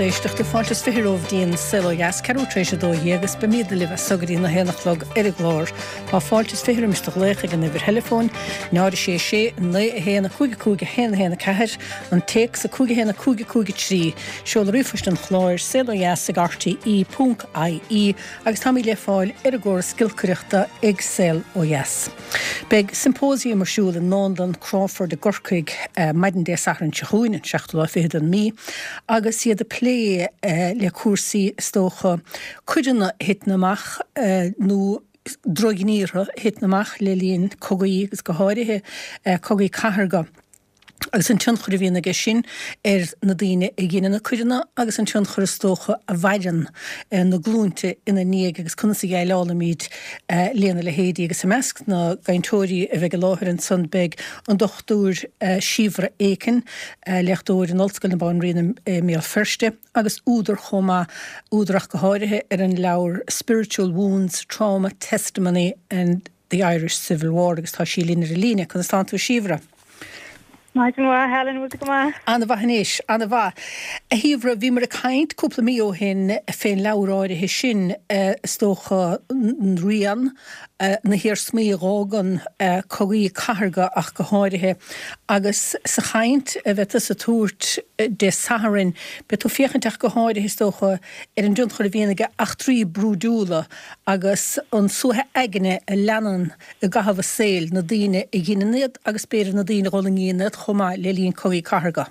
éisteachta, fáilte is 20 romhaibh dtí'n Saol Ó Dheas, ceathrú tar éis 12 agus beimídne libh as so go dtí na haon a chlog ar an gclár. Tá fáilte is 20 roimis do ghlaoch ag an uimhir theileafóin, 0 6 6 9 1 5 5 1 1 4, an téacs 5 1 5 5 3, seoladh ríomhphoist an chláir, saolodheas ag rte ponc ie, agus táimid le fáil ar an gcóras giolcaireachta ag Saol Ó Dheas. Beidh symposium ar siúl i nDánlann Crawford i gCorcaigh maidin Dé Sathairn seo chugainn, an seachtú lá fichead den mí, agus iad ag plé le cúrsaí, is dócha, coireanna a thiteann amach nó drochghníortha a thiteann amach le linn cogaí agus go háirithe cogaí cathartha. agus an tionchar a bhíonn aige sin ar na daoine a dheineann na coireanna agus an tionchar is dócha a mhaireann na glúinte ina ndiaidh agus conas a dhéileálaimid lena leithéidí. Agus i measc na gcainteoirí a bheidh i láthair ansan beidh an Dr Síobhra Aiken, léachtóir in Ollscoil na Banríona i mBéal Feirste agus údar chomh maith, údar ach go háirithe ar an leabhar Spiritual Wounds, Trauma, Testimony and. The Irish Civil War agus tá sí linn ar an líne. Conas tánn tú a Shíobhra? Maidin mhaith, Helen, bhfuil tú go maith? Ana-mhaith anois, ana-mhaith. A Shíobhra, bhíomar ag caint cúpla mí ó shin fén leabhar áirithe sin, is dócha, rian, na hiarsmaí a dh'fhágann cogaí cathartha ach go háirithe, agus sa chaint a bheidh tusa ag tabhairt Dé Sathairn, beidh tú ag féachaint ach go háirithe, is dócha, ar an dtionchar a bhíonn ag eachtraí brúidiúla agus an suaitheadh aigne a leanann i gcaitheamh a saoil na daoine a dheineann iad agus b'fhéidir na daoine a dh'fhulaingíonn iad chomh maith le linn cogaí cathartha.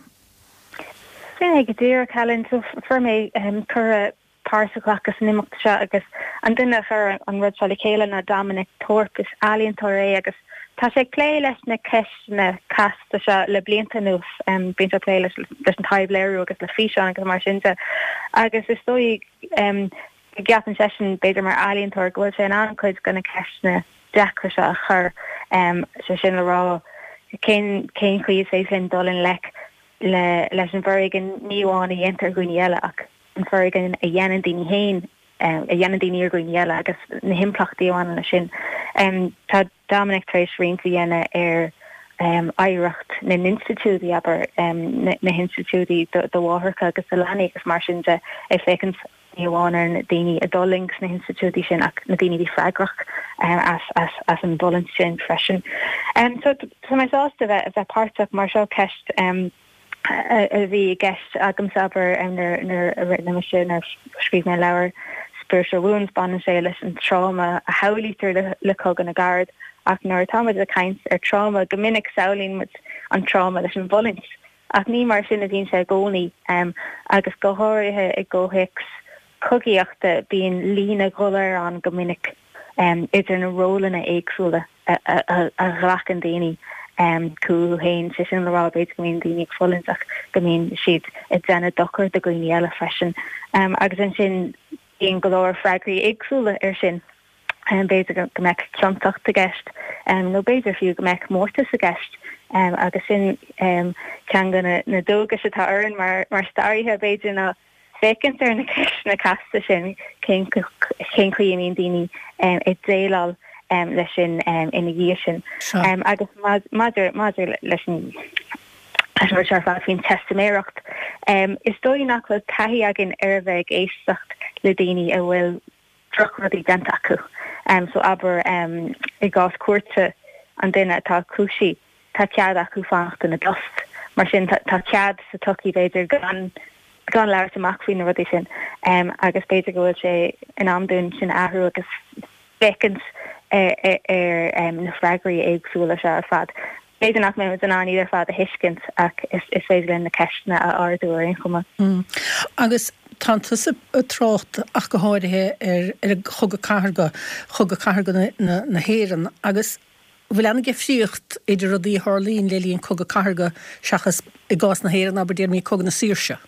Sin é go díreach, Helen. So fuair mé cuireadh páirt a ghlacadh san imeacht seo agus an duine a chuir an rud seo le chéile ná Dominic Thorpe. Is ealaíontóir é agus tá sé ag plé leis na ceisteanna casta seo le blianta anuas. Bíonn sé ag plé leis an taibhléiriú agus le físeáin agus mar sin de agus is dóigh go gceapann seisean, b'fhéidir mar ealaíontóir, go bhfuil sé in ann cuid de na ceisteanna deacra seo a chur, sé sin le rá, cén cén chaoi is féidir linn dul i ngleic le leis an bhforéigean ní amháin a dhéantar ar dhaoine eile ach an foréigean a dhéanann daoine féin, a dhéanann daoine ar dhaoine eile agus na himpleachtaí a bhaineann leis sin. Tá Dominic tar éis roinnt a dhéanamh ar oidhreacht na n-institiúidí, abair, na hinstitiúidí do mháithreacha agus do leanaí agus mar sin de, ag féachaint ní amháin ar na daoine a d'fhulaing sna hinstitiúidí sin ach na daoine a bhí freagrach as an bhfulaingt sin freisin. So tá mé sásta a bheith páirteach mar seo ceist a bhí i gceist agamsa, abair, nuair a rinne mise, nuair a scríobh mé an leabhar Spiritual Wounds, baineann sé leis an tráma a shamhlaítear le Cogadh na gCarad ach nuair atá muid ag caint ar tráma, go minic samhlaíonn muid an tráma leis an bhfulaingt ach ní mar sin a bhíonn sé i gcónaí agus go háirithe i gcomhthéacs cogaíochta bíonn líne dhoiléir ann go minic idir na rólanna éagsúla a ghlacann daoine chucu féin, sé sin le rá, b'fhéidir go mbíonn daoine ag fulaingt ach go mbíonn siad ag déanamh dochar do dhaoine eile freisin. Agus ansin bíonn go leor freagraí éagsúla air sin. B'fhéidir go mbeadh ciontacht i gceist nó b'fhéidir fiú go mbeadh mórtas i gceist agus sin ceann de na dualgais atá orainn mar staraithe, b'fhéidir, ná féachaint ar na ceisteanna casta sin, cén chaoi a mbíonn daoine ag déileáil leis sin ina dhiaidh sin. Agus maidir maidir leis an rud seo ar fad faoin teistiméireacht, is dóigh nach bhfuil taithí againn ar a bheith ag éisteacht le daoine a bhfuil drochrudaí déanta acu. So abair i gcás cúirte an duine atá cúisithe, tá cead acu fanacht ina dtost. Mar sin tá cead sa tsochaí b'fhéidir gan gan labhairt amach faoi na rudaí sin agus b'fhéidir go bhfuil sé in am dúinn sin a athrú agus féachaint ar na freagraí éagsúla seo ar fad. B'fhéidir nach mbeidh muid in ann iad ar fad a thuiscint ach is féidir linn na ceisteanna a ardú ar aon chuma. Agus tánn tusa ag trácht ach go háirithe ar ar an Chogadh Cathartha, Chogadh Cathartha na hÉireann agus an bhfuil an-difríocht idir rudaí a tharlaíonn le linn Cogadh Cathartha seachas i gcás na hÉireann, abair, déarfaimid Cogadh na Saoirse?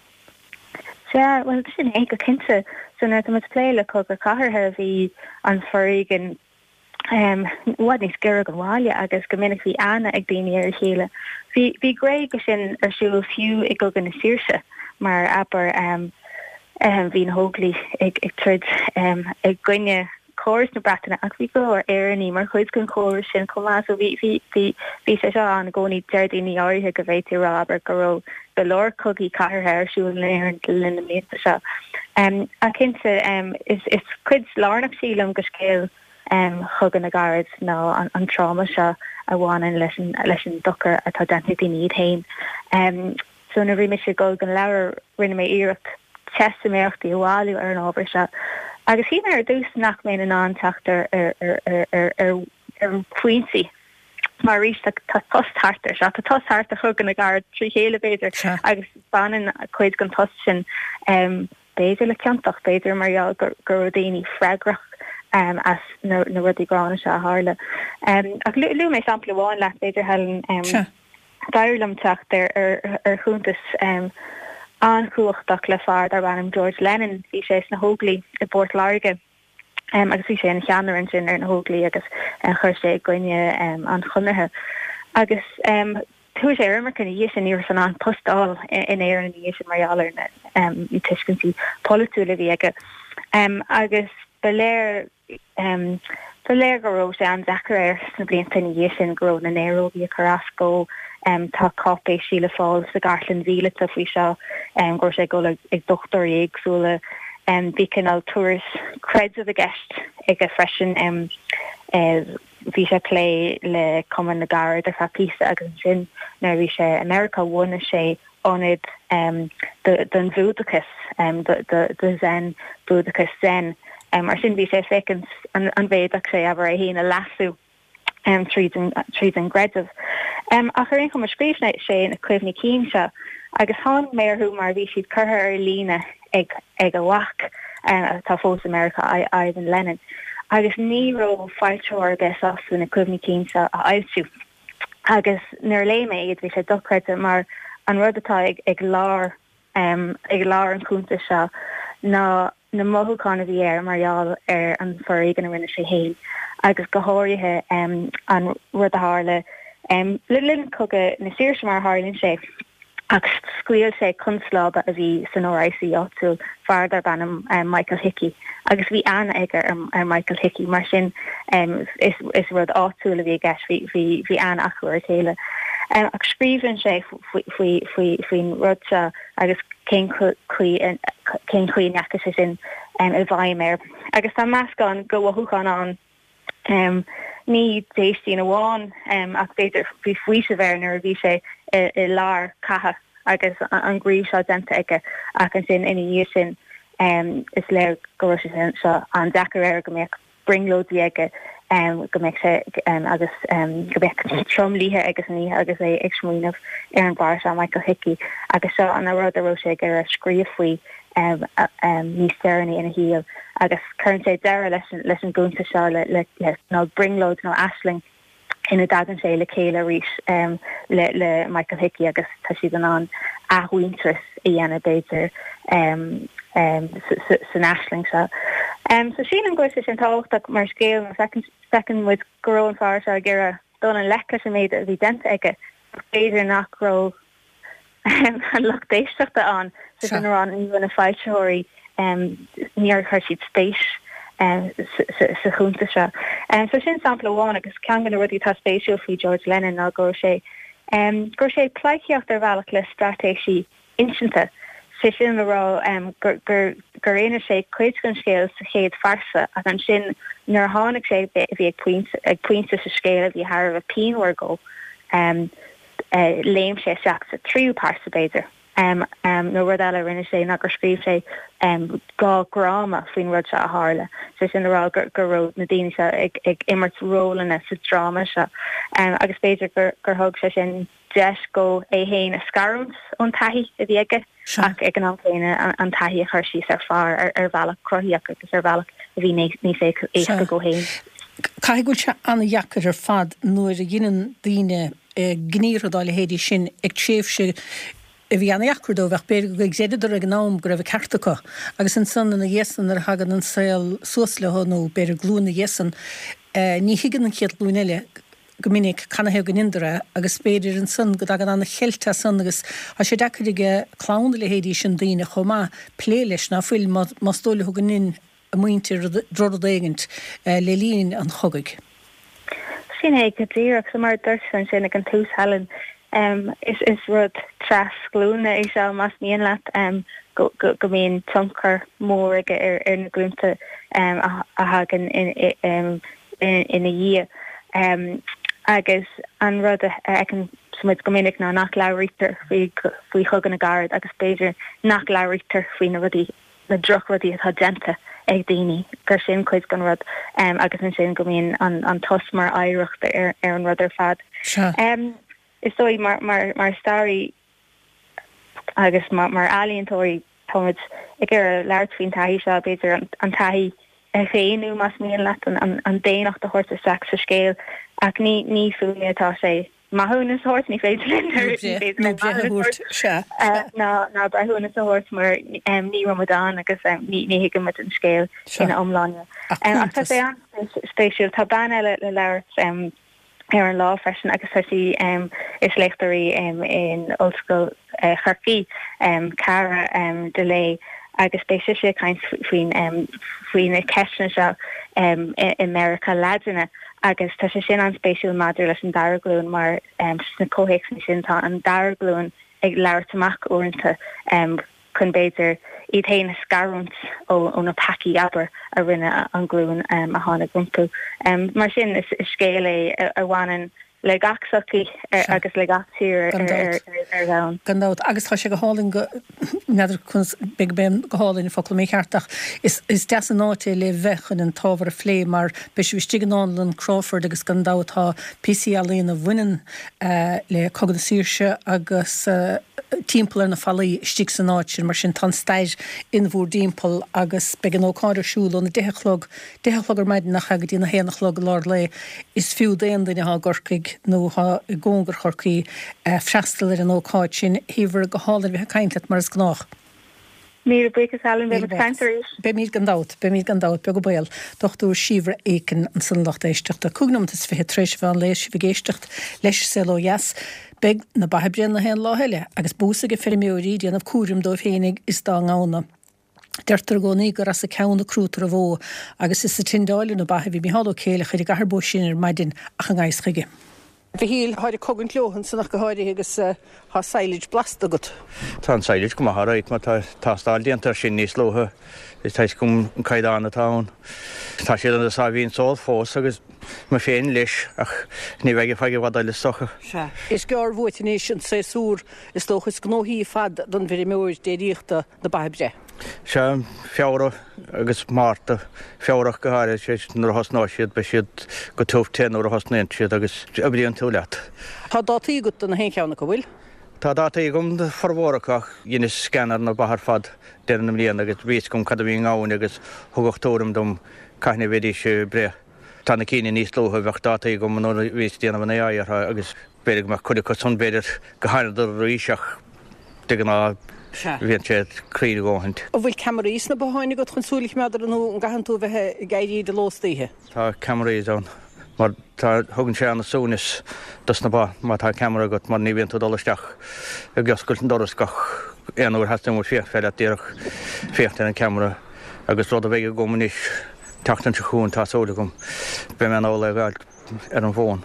Sea, bhuel sin é go cinnte. So nuair atá muid ag plé le Cogadh Cathartha bhí an foréigean i bhfad níos giorra don bhaile agus go minic bhí aithne ag daoine ar a chéile. Bhí bhí gné de sin ar siúl fiú i gCogadh na Saoirse mar abair bhí na hÓglaigh ag ag troid i gcoinne. chóras na Breataine ach bhí go leor Éireannaigh mar chuid den chóras sin chomh maith so bhí bhí bhí bhí sé seo ann i gcónaí. Deir daoine áirithe go bhféadfaí a rá abair go raibh go leor cogaí cathartha ar siúl in Éirinn le linn na mblianta seo. Ach cinnte is is cuid lárnach sílim de scéal Chogadh na gCarad ná an tráma seo a bhaineann leis an leis an dochar atá déanta ag daoine iad féin. So nuair a bhí mise ag dul don leabhar rinne mé iarracht teistiméireachtaí a bhailiú ar an ábhar seo agus shíl mé ar dtús nach mbeinn in ann teacht ar ar ar ar phointí mar arís tá tost thart ar seo, tá tost thart ar Chogadh na gCarad trí chéile b'fhéidir agus baineann cuid den tost sin b'fhéidir le ciontacht, b'fhéidir mar gheall go raibh daoine freagrach as na rudaí gránna seo a tharla. Ach luaigh mé sampla amháin leat b'fhéidir Helen. D'éirigh liom teacht ar chuntas an-chumhachtach le fear darb ainm George Lennon. Bhí sé sna hÓglaigh i bPort Láirge agus bhí sé ina cheannaire ansin ar na hÓglaigh agus chuir sé i gcoinne an Chonartha. Agus chuaigh sé ar imirce ina dhiaidh sin, ní raibh sé in ann post a fháil in Éirinn ina dhiaidh sin mar gheall ar na tuiscintí polaitiúla a bhí aige. Agus ba léir Ba léir go raibh sé an-deacair air sna blianta ina dhiaidh sin, go raibh na néarógaí ag cur as dó. Tá cáipéisí le fáil sa gcartlann mhíleata faoi seo, go raibh sé ag dul ag dochtúirí éagsúla. Bhí cineál turas creidimh i gceist aige freisin. Bhí sé ag plé le Cumann na gCarad ar feadh píosa agus ansin nuair a bhí sé i Meiriceá bhunaigh sé ionad don Bhúdachas, do Zen, Búdachas Zen. Mar sin bhí sé ag féachaint an bhféadfadh sé, abair, é féin a leasú tríd an gcreideamh. Ach ar aon chuma, scríobh sé na cuimhní cinn seo agus tháinig mé orthu mar bhí siad curtha ar líne ag a mhac, atá fós i Meiriceá, Ivan Lennon, agus ní raibh foilsitheoir ar bith sásta na cuimhní cinn seo a fhoilsiú. Agus nuair a léigh mé iad bhí sé dochreidte mar an rud atá ag lár ag lár an chuntais seo ná na mothúcháin a bhí air mar gheall ar an foréigean a rinne sé féin agus go háirithe an rud a tharla le linn Cogadh na Saoirse mar a tharlaíonn sé. Ach scaoil sé constábla a bhí san RIC áitiúil, fear darb ainm Michael Hickey, agus bhí aithne aige ar Michael Hickey, mar sin is rud áitiúil a bhí i gceist, bhí aithne acu ar a chéile. Ach scríobhann sé faoin rud seo agus cén chaoi a ndeachaigh sé sin i bhfeidhm air. Agus tá meascán de mhothúcháin ann. Ní déistín amháin ach b'fhéidir bhí faoiseamh air nuair a bhí sé i lár catha agus an gníomh seo déanta aige ach ansin ina dhiaidh sin is léir go raibh sé seo an-deacair air, go mbeadh brionglóidí aige, go mbeadh sé agus go mbeadh tromluithe aige san oíche agus é ag smaoineamh ar an bhfear seo Michael Hickey agus seo an rud a raibh sé ag iarraidh scríobh faoi. níos deireanaí ina shaol agus cuireann sé deireadh leis an gcuntas seo le cineál brionglóid nó aisling ina dtagann sé le chéile arís le Michael Hickey agus tá siad in ann athmhuintearas a dhéanamh b'fhéidir san aisling seo. So sílim go bhfuil sé sin tábhachtach mar scéal mar feiceann muid go raibh an fear seo ag iarraidh dul i ngleic leis an méid a bhí déanta aige ach b'fhéidir nach raibh an lucht éisteachta ann, sé sin le rá ní raibh na foilsitheoirí, níor chuir siad spéis sa chuntas seo. So sin sampla amháin agus ceann de na rudaí atá spéisiúil faoi George Lennon ná go raibh sé, go raibh sé ag pleidhcíocht ar bhealach le straitéisí insinte, sé sin le rá gur gur inis sé cuid den scéal sa chéad phearsa ach ansin nuair a tháinig sé bhí ag pointe ag pointe sa scéal a bhí thar a bheith pianmhar dó. Léim sé isteach sa tríú pearsa, b'fhéidir. Nó rud eile a rinne sé ná gur scríobh sé 2 dhráma faoin rud seo a tharla, sé sin le rá go raibh na daoine seo ag imirt rólanna sa dráma seo. Agus b'fhéidir gur thug sé sin deis dhó é féin a scarúint ón taithí a bhí aige ach ag an am céanna an taithí a chur síos ar phár ar bhealach cruthaíoch agus ar bhealach a bhí níos éasca dhó féin. Caithfidh go bhfuil sé an-dheacair ar fad nuair a dheineann daoine gníomhartha dá leithéidí sin ag tréimhse a bhí an-dheacair dóibh ach b'fhéidir gur chreideadar ag an am go raibh an ceart acu agus ansan ina dhiaidh san nuair a thagann an saol suas leo nó b'fhéidir glúin ina dhiaidh san ní thuigeann an chéad ghlúin eile go minic canathaobh go ndeineadar é agus b'fhéidir ansan go dtagann an-cheilt as san agus tá sé deacair ag clann a leithéidí sin daoine chomh maith plé leis ná fuil más dóigh leo go ndein. a muintir drochrud éigint le linn an chogaidh. Sin é go díreach. So mar a dúirt tú ansin ag an tús, Helen, is rud trasghlúine é seo, más mian leat, go mbíonn tionchar mór aige ar na glúnta a thagann ina dhiaidh. Agus an rud a fheiceann muid go minic ná nach labhraítear faoi Chogadh na gCarad agus b'fhéidir nach labhraítear faoi na rudaí na drochrudaí atá déanta ag daoine, gur sin cuid den rud agus ansin go mbíonn an tost mar oidhreacht ar an rud ar fad. Is dóigh mar staraí agus mar ealaíontóirí táimid ag iarraidh labhairt faoin taithí seo, b'fhéidir an taithí a dhaonnú más mian leat, an daonnacht a thabhairt isteach sa scéal ach ní fúinne atá sé. maithiúnas a thabhairt, ní féidir linn ní féidir linn maithiúnas a thabhairt ná breithiúnas a thabhairt mar ní raibh muid ann agus ní thuigeann muid an scéal ina iomláine. Ach tá sé an-spéisiúil. Tá bean eile le labhairt ar an lá freisin agus tá sí is léachtóir í in Ollscoil Chorcaí, Cara Delay, agus beidh sise ag caint faoin faoi na ceisteanna seo i Meiriceá Laidine. Agus tá sé sin an-spéisiúil maidir leis an dara glúin mar sna comhthéacsanna sin tá an dara glúin ag labhairt amach uaireanta chun b'fhéidir iad féin a scarúint ó na peacaí, abair, a rinne an ghlúin a tháinig rompu. Mar sin is scéal é a bhaineann le gach sochaí agus le gach tír ar domhan. Gan dabht. Agus tá sé go hálainn go, n'fheadar conas, b'fhéidir gurb é an go hálainn an focal mícheart ach is is deas an áit é le bheith chun an t-ábhar a phlé mar beidh sibh istigh i nDánlann Crawford agus gan dabht tá píosaí ealaíona a bhaineann le Cogadh na Saoirse agus timpeall ar na fallaí istigh san áit sin mar sin tá an stair in bhúr dtimpeall agus beidh an ócáid ar siúl óna deich a chlog deich a chlog ar maidin nach ea go dtí na haon a chlog i lár lae. Is fiú d'aon duine atá i gCorcaigh nó atá i gcóngar Chorcaí freastal ar an ócáid sin. A Shíobhra, go hálainn a bheith ag caint leat mar is gnách. Míle buíochas Helen, beidh muid ag caint arís. Beimid gan dabht, beimid gan dabht, beag an baol. Dr Síobhra Aiken ansan a lucht éisteachta. 5 nóimeat is 20 tar éis an mheán lae, sibh ag éisteacht leis Saol Ó Dheas. Beidh na ba ag breith na haon lá eile agus bús ag feirmeoirí ag déanamh cúraim dóibh féinig is dá ngamhna. Deirtear i gcónaí gur as a ceann a crúitear an bhó, agus is ag tindeáil ar na ba a bhí Micheál Ó Céileachair i gCathair Bó Sine ar maidin ach i ngan fhios chuige. A Mhichíl, táid ag cogaint leo ansan ach go háirithe agus tá silage blasta agat. Tá an silage go maith alright mar tá tástáil déanta air sin níos luaithe is tá fhios agam an caighdeán atá ann. Tá siad ina sáimhín só fós agus mé féin leis ach ní bheidh ar feadh i bhfad eile is dócha. Sea. Is gearr uait anois an séasúr is dócha is gnóthaí ar fad don bhfeirmeoir déiríochta. na ba ag breith. Sea, Feabhra agus Márta, Feabhra ach go háirithe, sé nuair a thosnóidh siad, beidh siad go tiubh te nuair a thosnaíonn siad agus oibríonn tú leat. Tá dátaí agat do na haon cheann acu, bhfuil? Tá dátaí agam do formhór acu ach dheineas scan ar na ba ar fad deireadh na mbliana agus bhí fhios agam cad a bhí i ngamhain agus thugadh tuairim dom cathain a bheidís ag breith. Tá na cinn níos luaithe, bheadh dátaí agam nuair a bhíos ag déanamh an AI orthu agus B'fhéidir go mbeadh cuid acu san, b'fhéidir go thánadar arís ach de ghnáth bhíonn siad cruinn a dhóthaint. An bhfuil ceamaraí sna botháin agat chun súil a choimeád orthu nó an gcaitheann tú a bheith ag éirí de ló is d'oíche? Tá ceamaraí ann mar tá, thugann sé ana-suaimhneas dos na ba má tá ceamara agat mar ní bhíonn tú ag dul isteach ag oscailt an doras gach aon uair theastaíonn uait féachaint, féidir leat díreach féachaint ar an ceamara agus rud a bheidh agam anois an tseachtain seo chugainn tá súil agam beidh mé in ann é a fháil. ar an bhfón.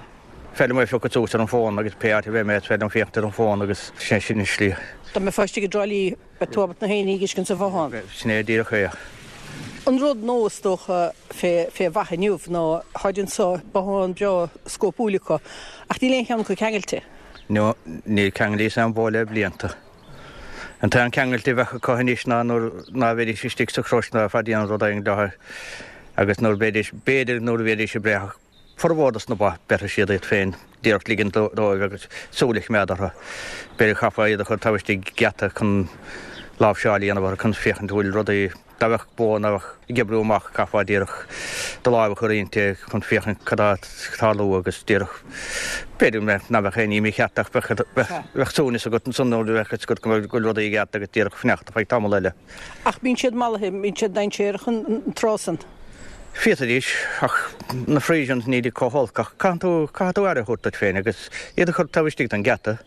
Féidir liom é a phiocadh suas ar an bhfón agus pé áit a bheidh mé is féidir liom féachaint ar an bhfón agus sin sin an slí. Dá mbeifeá istigh i dTrá Lí beidh tú ábalta na haon ní a fheiscint sa bhothán. Sin é díreach é. An rud nua is dócha fé fé bha inniu ná táid anso bothán breá scópúil acu ach níl aon cheann acu ceangailte. No, níor ceanglaíos aon bhó le blianta. An t-aon ceangailte a bheadh acu anois ná nuair ná bheidís istigh sa chrois ná bheifeá ag déanamh rud éigin leo agus nuair bheidís, b'fhéidir nuair a bheidís ag breith ach formhór dos na ba, beirfidh siad iad féin, díreach ligint dóibh agus súil a choimeád orthu. B'fhéidir chaithfeá iad a chur taobh istigh geata chun láimhseáil a dhéanamh orthu chun féachaint an bhfuil rudaí, Dá mbeadh bó ná beadh ag oibriú amach chaithfeá díreach do láimh a chur inti chun féachaint cad tá ag tarlú agus díreach b'fhéidir ná beadh aon ní mícheart ach bheadh suaimhneas agat ansan nuair a bheadh fhios agat go bhfuil rudaí i gceart agus díreach fanacht ar feadh tamall eile. Ach bíonn siad mallaithe, bíonn siad dainséarach an tráth san. Féadfaidís, ach na Friesians nílid chomh holc, ach caitheann tú, caithfidh tú aire a thabhairt duit féin agus iad a chur taobh istigh den gheata.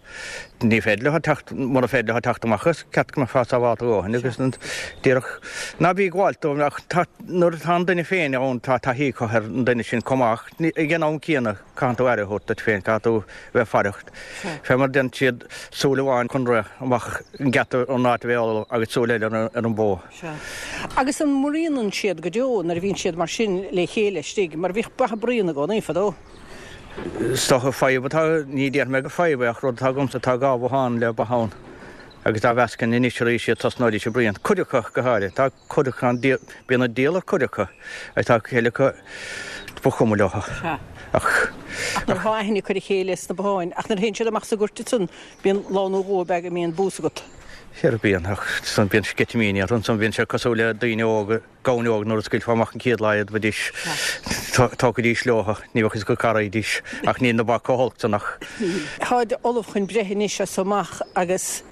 Ní féidir leo teacht, mura féidir leo teacht amach as, ceart go mbeifeá sábhálta a dhóthain agus díreach, ná bí ag gabháilt dóibh ach tá, nuair atá an duine féin ann tá taithí acu ar an duine sin chomh maith ach ag an am céanna caitheann tú aire a thabhairt duit féin, caithfidh tú bheith faireach. Fé mar a deireann siad, súil amháin chun rith amach an geata an áit a bheith ullamh agus súil eile ar an bhó. Sea. Agus an mbruíonann siad go deo nuair a bhíonn siad mar sin le chéile istigh, mar bhíodh ba ag bruíon i gcónaí fadó? Is dócha fadhb atá, ní déarfaidh mé gur fadhb é ach rud atá agamsa, tá dhá bhothán le ba ann agus dá mheascainn anois arís iad tosnóidís ag bruíon. Cuid acu go háirithe, tá cuid acu ann, bíonn an diabhal ar cuid acu agus tá cuid acu ba chuma leo. Sea. Ach. Ach nuair atá aithne acu ar a chéile sna botháin, ach nuair a théann siad amach sa gcúirt ansan, bíonn lá nó dhó ab ea go mbíonn bús agat. Sea, bíonn, ach ansan bíonn sceitimíní orthu, ansan bíonn sé cosúil le daoine óga, gamhain óg nuair a scaoilfeá amach an chéad lá iad bheidís, tógfaidís leo, ní bheadh fhios acu cá raghaidís, ach níl na ba chomh holc san ach. Táid ullamh chun breith anois as so amach agus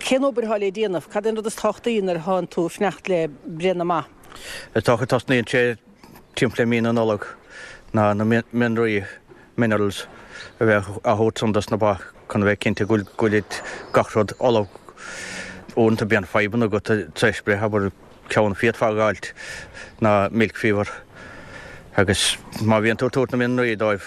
cén obair atá le déanamh? Cad é an rud is tábhachtaí nuair atánn tú ag fanacht le breith na mba? Is dócha tosnaíonn sé timpeall le mí na Nollag ná na mianraí. minerals, a bheith á thabhairt san dos na ba chun a bheith cinnte go bhfuil gach rud ullamh. Uaireanta bíonn fadhbanna agat tar éis breith, abair ceann a féadfá a dh'fháilt ná milk fever agus má bhíonn tú ag tabhairt na mianraí dóibh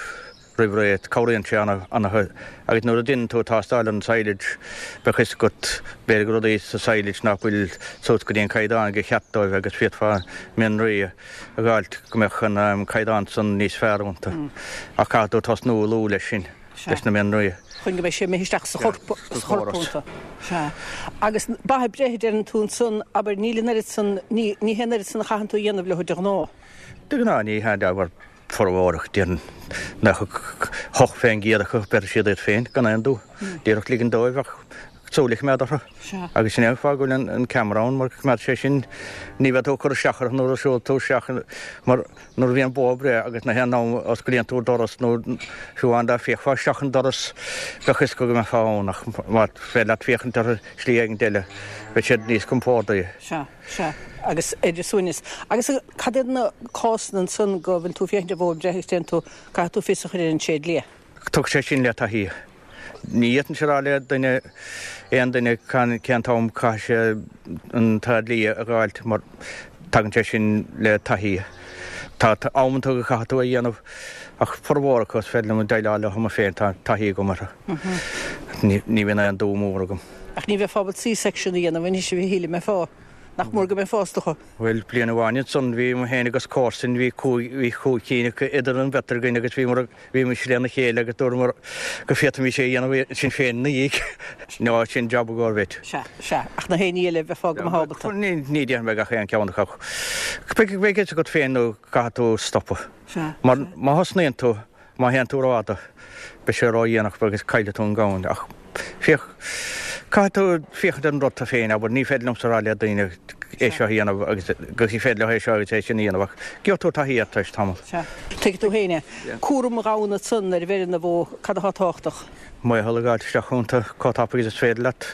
roimh ré cabhraíonn sé ana-chuid agus nuair a deineann tú tástáil ar an silage beidh fhios agat b'fhéidir go rudaí sa silage nach bhfuil suas go dtí an caighdeán gur cheart dóibh agus féadfá mianraí a a dh'fháilt go mbeadh an caighdeán san níos fearr iontu. Ach caithfidh tú tosnú luath leis sin, leis na mianraí. Chun go mbeidh sé imithe isteach sa chorp, sa chorp iontu. Sea. Agus ba ag breith a deireann tú ansan, abair, níl an oiread san, ní, ní hé an oiread san a chaitheann tú a dhéanamh leo de ghnáth. De ghnáth ní hea, abair, formhór acu, déarfainn 98% acu, beirfidh siad iad féin gan aon dua. Díreach ligean dóibh ach súil a choimeád orthu. Agus sin é an fáth go bhfuil an ceamara ann, mar coimeád sé sin, ní bheidh tú ag cur isteach orthu nuair a siúl tú isteach, mar nuair a bhíonn bó ag breith agus na haon am a osclaíonn tú doras nó fiú amháin dá bhféachfá isteach an doras, bheadh fhios acu go mbeifeá ann ach más féidir leat féachaint orthu slí éigin eile, beidh siad níos compórdaí. Sea, sea. Agus ar a suaimhneas. Agus cad iad na cásanna ansan go bhfuil tú ag féachaint ar bhó ag breith agus déanann tú, caithfidh tú fios a chur ar an tréidlia? Tagann sé sin le taithí. Ní fhéadfainnse a rá le duine, aon duine, cén t-am caithfidh sé an tréidlia a dh'fháilt mar tagann sé sin le taithí. Tá amanta go caithfidh tú é a dhéanamh ach formhór acu is féidir liom déileáil leo mé féin, tá taithí agam orthu. Ní bhíonn aon dua mór agam. Ach ní bheifeá ábalta C-section a dhéanamh anois a Mhichíl, an mbeifeá? Nach mór go mbeifeá is dócha. Bhuel, bliain amháin ansan bhí mé féin agus comharsain, bhí cúig, bhí chúig cinn acu idir an bheirt againn agus bhíomar, bhímis lena chéile agus dúramar go bhféadfaimis é a dhéanamh sinn féin ina dhiaidh. Nó sin job i gcomhair vet. Sea, sea. Ach na héinní eile, bheifeá go maith ábalta. Ní, ní déarfaidh mé gach aon ceann acu ach beidh, beidh fhios agat féin nó caithfidh tú stopadh. Sea, Mar má thosnaíonn tú, Má théann tú rófhada, beidh sé ródhéanach agus caillfidh tú an gamhain. Ach féach, caithfidh tú féachaint ar an rud tú féin, abair, ní féidir liomsa a rá le daoine é seo a dhéanamh agus gur féidir leo é seo agus é sin a dhéanamh ach gheobhaidh tú taithí air tar éis tamaill. Sea. Tuigfidh tú féin é. Cúram an ghamhna ansan nuair a bheireann an bhó, cad atá tábhachtach? Maothal a dh'fháilt isteach iontu chomh tapaidh agus is féidir leat.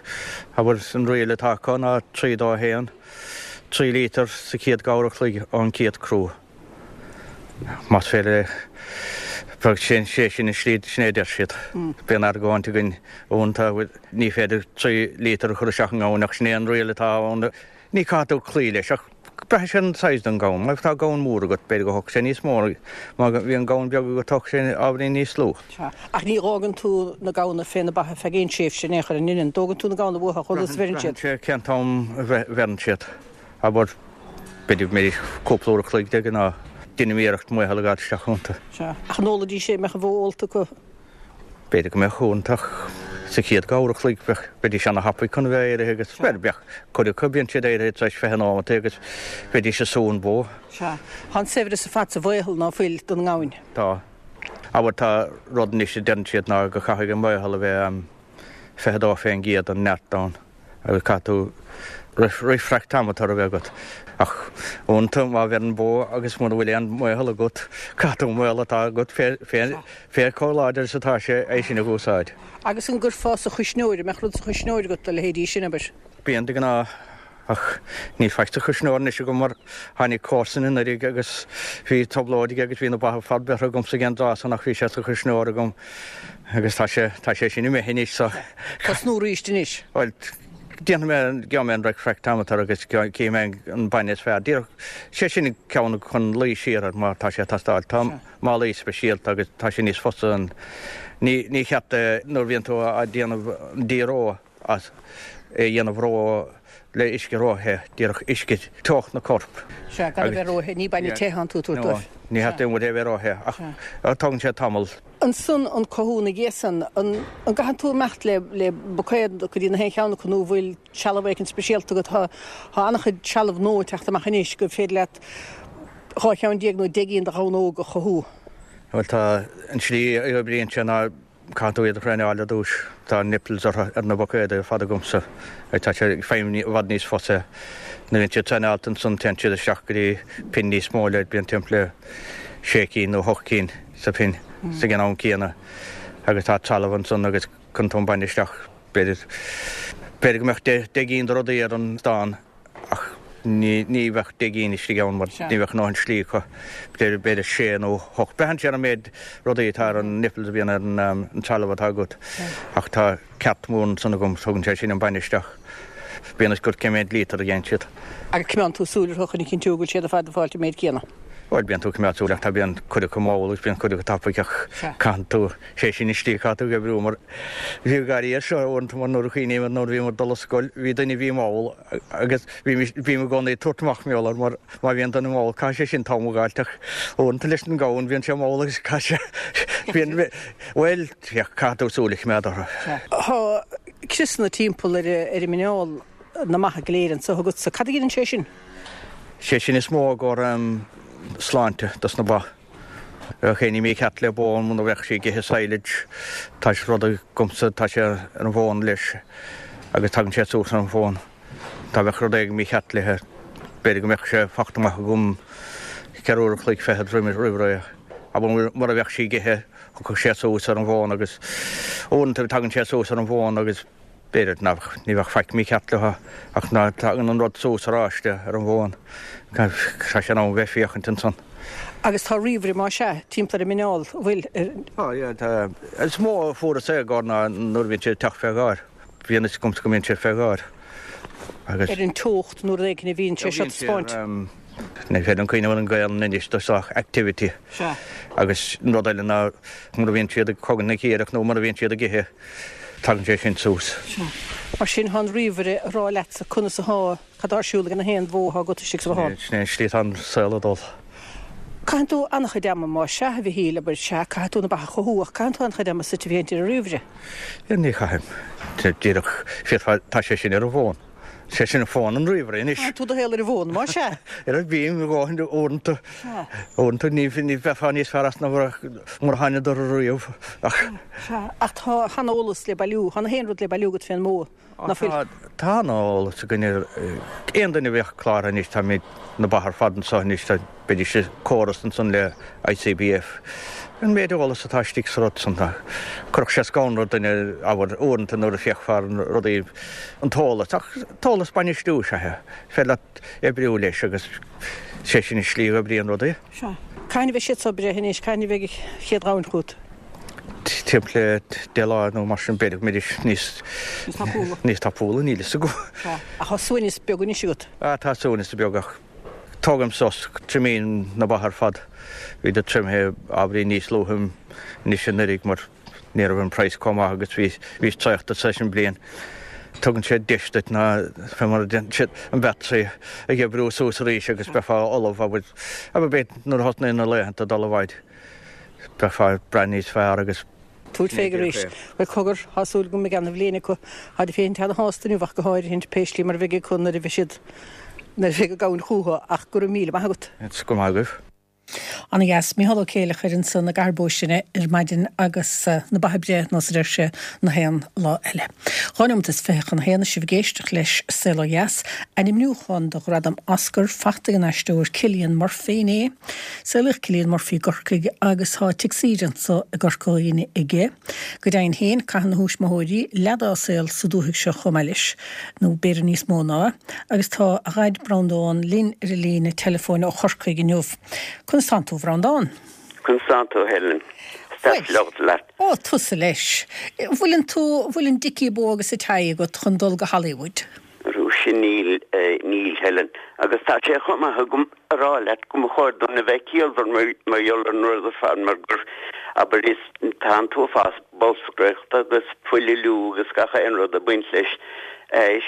Abair, an riail atá acu ná 3, 2, 1, 3 lítear sa chéad uair a chloig ón gcéad crú. Más féidir é, bheadh sé sin an slí, sin é a deir siad. Bíonn argóint againn uaireanta, ní féidir 3 lítear a chur isteach i ngamhain ach sin é an riail atá ann. Ní caithfidh tú cloí leis ach braitheann sé ar an size den ghamhain. Má tá gamhain mór agat, b'fhéidir go thógfaidh sé níos mó, má bhíonn gamhain beag agat tógfaidh sé ábhairín níos lú. Sea. Ach ní dh'fhágann tú na gamhna fé na ba ar feadh aon tréimhse in aon chor, an ndeineann? An dtógann tú na gamhna uathu chomh luath is a bheireann siad? Braitheann sé cén t-am a bheireann siad. Abair, b'fhéidir go mbeidís cúpla uair a chloig de ghnáth. Deinim iarracht maothal a dh'fháilt isteach iontu. Sea. Ach an ólfaidís é, an mbeadh an bhó ólta acu? B'fhéidir go mbeadh uaireanta ach sa chéad uair a chloig bheadh, bheidís ana-thapaidh chun a bheith éirithe agus, bhuel, bheadh cuid acu, bíonn siad éirithe tar éis 20 nóimeat agus bheidís ag sú an bhó. Sea. Tá an saibhreas ar fad sa mhaothal ná fuil don ngamhain? Tá. Abair, tá rud anois a deireann siad ná go chaithfidh an maothal a bheith 22% den neart ann. agus caithfidh tú refractometer a bheith agat. Ach uaireanta má bheireann bó agus mura bhfuil aon mhaothal agat, caithfidh tú an maothal atá agat fé chomh láidir is atá sé é sin a úsáid. Agus an gcuirfeá sa chuisneoir, an mbeadh rud sa chuisneoir agat do leithéidí sin, abair? Bíonn de ghnáth. Ach níl faic sa chuisneoir anois agam mar tháinig comharsan anuraidh agus bhí trioblóid aige agus bhí na ba ar fad beirthe agamsa ag an dtráth san ach bhí sé sa chuisneoir agam agus tá sé, tá sé sin imithe anois so. Tosnú arís anois? Bhuel, déanfaidh mé, gheobhaidh mé an refractometer agus cífidh mé an bainne is fearr. Díreach, sé sin an ceann chun luí siar air má tá sé ag teastáil. Tá málaí speisialta agus tá sé níos fusa an, ní, ní cheart é nuair a bhíonn tú á déanamh an díreo. as é a dhéanamh ró le uisce róthe, díreach uisce teocht na corp. Sea, gan a bheith róthe, ní bainne te atánn tú a tabhairt dóibh. Ní cheart aon rud a bheith róthe, ach tógann sé tamall. Ansan an cothú ina dhiaidh san, an gcaitheann tú imeacht le le buicéad go dtí na haon cheann acu nó bhfuil trealamh éicint speisialta agat? Tá tá an-chuid trealamh nua ag teacht amach anois gur féidir leat 12 cheann nó 10 gcinn de ghamhna óga a chothú. Bhuel tá, an tslí a oibríonn sé ná Caithfidh tú iad a thraenáil ar dtús. Tá nipples orthu ar na buicéadaí ar fad agamsa. Tá sé ag feidhmiú i bhfad níos fusa. Nuair a bhíonn siad traenáilte ansan téann siad isteach go dtí pin níos mó le bíonn timpeall le sé cinn nó hocht cinn sa phin sa ag an am céanna agus tá trealamh ansan agus cuireann tú an bainne isteach b'fhéidir b'fhéidir go mbeadh deich gcinn de rudaí ar an stán Ach ní bheadh 10 gcinn istigh ann mar ní bheadh a ndóthain slí acu. B'fhéidir sé nó hocht. Braitheann sé ar an méid rudaí atá ar an nipples a bhíonn ar an trealamh atá agat. Ach tá cart mór ansan agam, tugann sé sin an bainne isteach. Bíonn a fhios agat cé méid lítear a dhéanann siad. Agus coimeádann tú súil orthu chun a chinntiú go bhfuil siad ar fad ag fáilt an méid céanna? Bhuel, bíonn tú ag coimeád súil ach tá bíonn cuid acu mall agus bíonn cuid acu tapaidh ach caitheann tú, sé sin an tslí caithfidh tú ag oibriú mar bhí gáirí air seo uaireanta mar nuair a chuimhním ar nuair a bhíomar ag dul ar scoil bhí duine a bhí mall agus bhí bím i gcónaí ag tabhairt amach mar gheall air mar má bhíonn duine mall caithfidh sé sin t-am a dh'fháilt ach uaireanta leis an gamhain bíonn sé mall agus caithfidh sé bíonn bhuel caithfidh tú súil a choimeád orthu. Tá criosanna timpeall ar ar an muineál na mba go léir anso agatsa. Cad a ghineann sé sin? Sé sin is mó i gcomhair sláinte dos na ba. Bheadh éinní mícheart le bó muna bheadh sí ag ithe silage. Tá sé rud agamsa, tá sé ar an bhfón leis agus tagann sé suas ar an bhfón. Dá bheadh rud éigin mícheart léithe, b'fhéidir go mbeadh sé fachta amach agam ceithre uair an chloig fichead roimh ré. Abair mura bheadh sí ag ithe, thiocfadh sé suas ar an bhfón agus uaireanta tagann sé suas ar an bhfón agus B'fhéidir nach, ní bheadh faic mícheart leo ach ná tagann an rud suas aráiste ar an bhfón. Tá sé in am bheith féachaint ansan. Agus tá ríomhaire, más ea, timpeall ar an muineál, an bhfuil? Tá, yeah, tá. Is mó a fuaireas é i gcomhair ná nuair a bhíonn sé ag teacht fé gháir. Bíonn fhios agamsa go mbíonn sé fé gháir. Agus. Ar an teocht nó rud éigin a bhíonn sé seo taispeáint. Ní féidir liom cuimhneamh ar an Ghaelainn anois do sách activity. Sea. Agus an rud eile ná mura bhíonn siad ag cogaint na cíorach nó mura bhíonn siad ag ithe. Tagann sé sin suas. Sea. Mar sin, tá an ríomhaire ag rá leatsa conas atá, cad tá ar siúl ag na haon bhó atá agat istigh sa bhothán. Sin é an slí atá an saol ag dul. Caitheann tú an-chuid ama, más ea, a Mhichíl, abair, sea, caithfidh tú na ba a chothú, ach caitheann tú an-chuid ama suite féachaint ar an ríomhaire. Ní chaithim. Díreach, féadfá, tá sé sin ar an bhfón. Sé sin an fón an ríomhaire anois. Caitheann tú do shaol ar an bhfón, más ea. Ar a bím a dhóthain uaireanta. Sea. Uaireanta ní bheifeá níos fearr as ná mura thánadar ariamh ach. Sea, ach tá an-eolas le bailiú, tá na haon rud le bailiú agat fén mbó, ná fuil? Tá, tá an-eolas againn ar aon duine a bheadh cláraithe anois, táimid na ba ar fad anseo anois, tá Beidís i córas ansan le ICBF. An méid eolas atá istigh sa rud san, chuirfeadh sé scanradh ar dhuine, abair, uaireanta nuair a féachfá ar na rudaí, an t-eolas, ach t-eolas bainistiú is ea é. Is féidir leat oibriú leis agus sé sin an slí a oibríonn rudaí. Sea. Cathain a bheidh siad so breithe anois? Cathain a bheidh an chéad ghamhain chugat? Timpeall le 10 lá nó mar sin, b'fhéidir go mbeidís níos. Níos tapúla. Níos tapúla, níl fhios agam. Sea. Ach tá suaimhneas beag anois agat? Ah, tá suaimhneas beag ach. Tógaim sos, triomaím na ba ar fad. Bhíodar triomaithe ábhairín níos luaithe anois anuraidh mar ní raibh an praghas chomh maith agus bhí bhíos traochta tar éis an bliain. Tugann sé deis duit ná fé mar a déanann siad an battery a oibriú suas arís agus beifeá ullamh abair abair b'fhéidir nuair a thosnaíonn na laethanta dul i bhfaid beifeá ag brath níos fearr agus Tabhairt fé arís. Bhuel, cogar, tá súil agam go mbeidh ana-bhliain acu. Táid féin ana-shásta inniu ach go háirithe, pé slí mar a bheidh acu nuair a bheidh siad, nuair a bheidh an gamhain chúthu, ach go raibh míle maith agat. Go raibh maith agaibh. Ana-dheas. Mícheál Ó Céileachair ansan i gCathair Bó Sine ar maidin agus na ba ag breith nós a deir sé na haon lá eile. Dhá neomat is 21 tá sibh ag éisteacht leis Saol Ó Dheas. Ainmniúchán do Ghradam Oscar fachta ag an aisteoir Cillian Murphy inné. Saolaíodh Cillian Murphy i gCorcaigh agus tá tigh saoire anso i gCorca Dhuibhne aige. Go deimhin féin, caitheann a thuismitheoirí leath dá saol sa dúthaigh seo chomh maith leis, nó b'fhéidir níos mó ná, agus tá a dhaid Breandán linn ar an líne teileafóin ó Chorcaigh inniu. Conas tánn tú, a Bhreandáin? Conas tánn tú, a Helen? Is deas labhairt leat. Ó, tusa leis. Bhfuileann tú, bhfuil an dicky bow agus an tie agat chun dul go Hollywood? Arú sin níl, níl, Helen. Agus tá sé chomh maith agam a rá leat go mba chóir dúinn a bheith ciallmhar mar gheall ar an rud ar fad mar gur, abair, is, tá an t-uafás bolscaireachta agus poibliú agus gach aon rud ag baint leis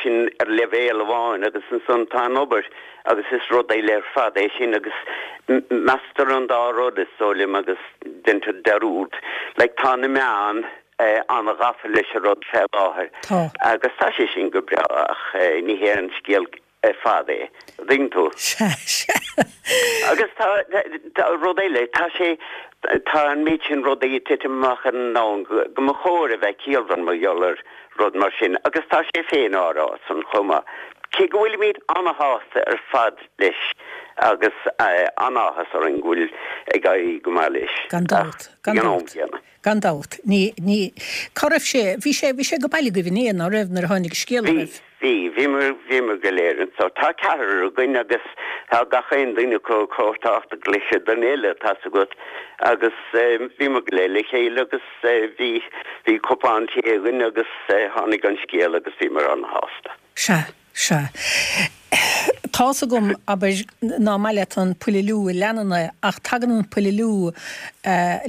sin ar leibhéal amháin agus ansan tá an obair agus is rud eile ar fad é sin agus measctar an dá rud is dóigh liom agus deintear dearúd. Like tá na meáin an-ghafa leis an rud fé láthair agus tá sé sin go breá ach ní hé an scéal ar fad é, an dtuigeann tú? Sea, sea. Agus tá, tá rud eile, tá sé, tá an méid sin rudaí ag titim amach ar an domhan go, go mba chóir a bheith ciallmhar mar gheall ar rud mar sin agus tá sé féin á rá san chomh maith. Cé go bhfuilimid an-shásta ar fad leis agus an-áthas orainn go bhfuil ag éirí go maith leis Gan dabht, gan ag an am dabht. céanna. Gan dabht. Ní, ní, cá raibh sé, bhí sé, bhí sé go baile agaibh inné, ná raibh, nuair a tháinig an scéal Bhí, oraibh? bhí, bhíomar, bhíomar go léir anso. Tá ceathrar againn agus tá gach aon duine acu chomh tábhachtach leis an duine eile, tá's agat. Agus bhíomar go léir le chéile agus bhí, bhí cupán tae againn agus tháinig an scéal agus bhíomar an-shásta. Sea, sea. Tá's agam, abair, ná maith leat an poibiliú a leanann é, ach tagann an poibiliú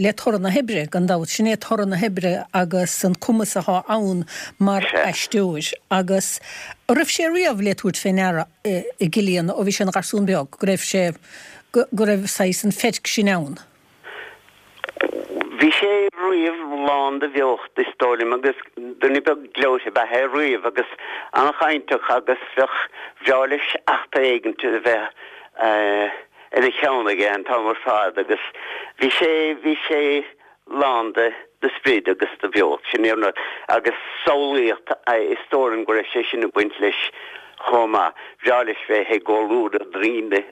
le toradh na hoibre, gan dabht. Sin é toradh na hoibre agus an cumas athá ann mar aisteoir. Agus an raibh sé riamh le tabhairt fé ndeara i gCillian ó bhí sé ina gharsún beag, go raibh sé, go raibh saghas an pheirc sin ann? Bhí sé riamh lán de bheocht, is dóigh liom, agus duine beag gleoite ab ea é riamh agus an-chainteach agus bheadh, bhreá leis eachtra éigint a bheith ina cheann aige an t-am ar fad agus bhí sé, bhí sé lán de, de sprid agus de bheocht, sin é an rud. Agus samhlaíocht, is dóigh liom go raibh sé sin ag baint leis chomh maith. Bhreá leis bheith i gcomhluadar daoine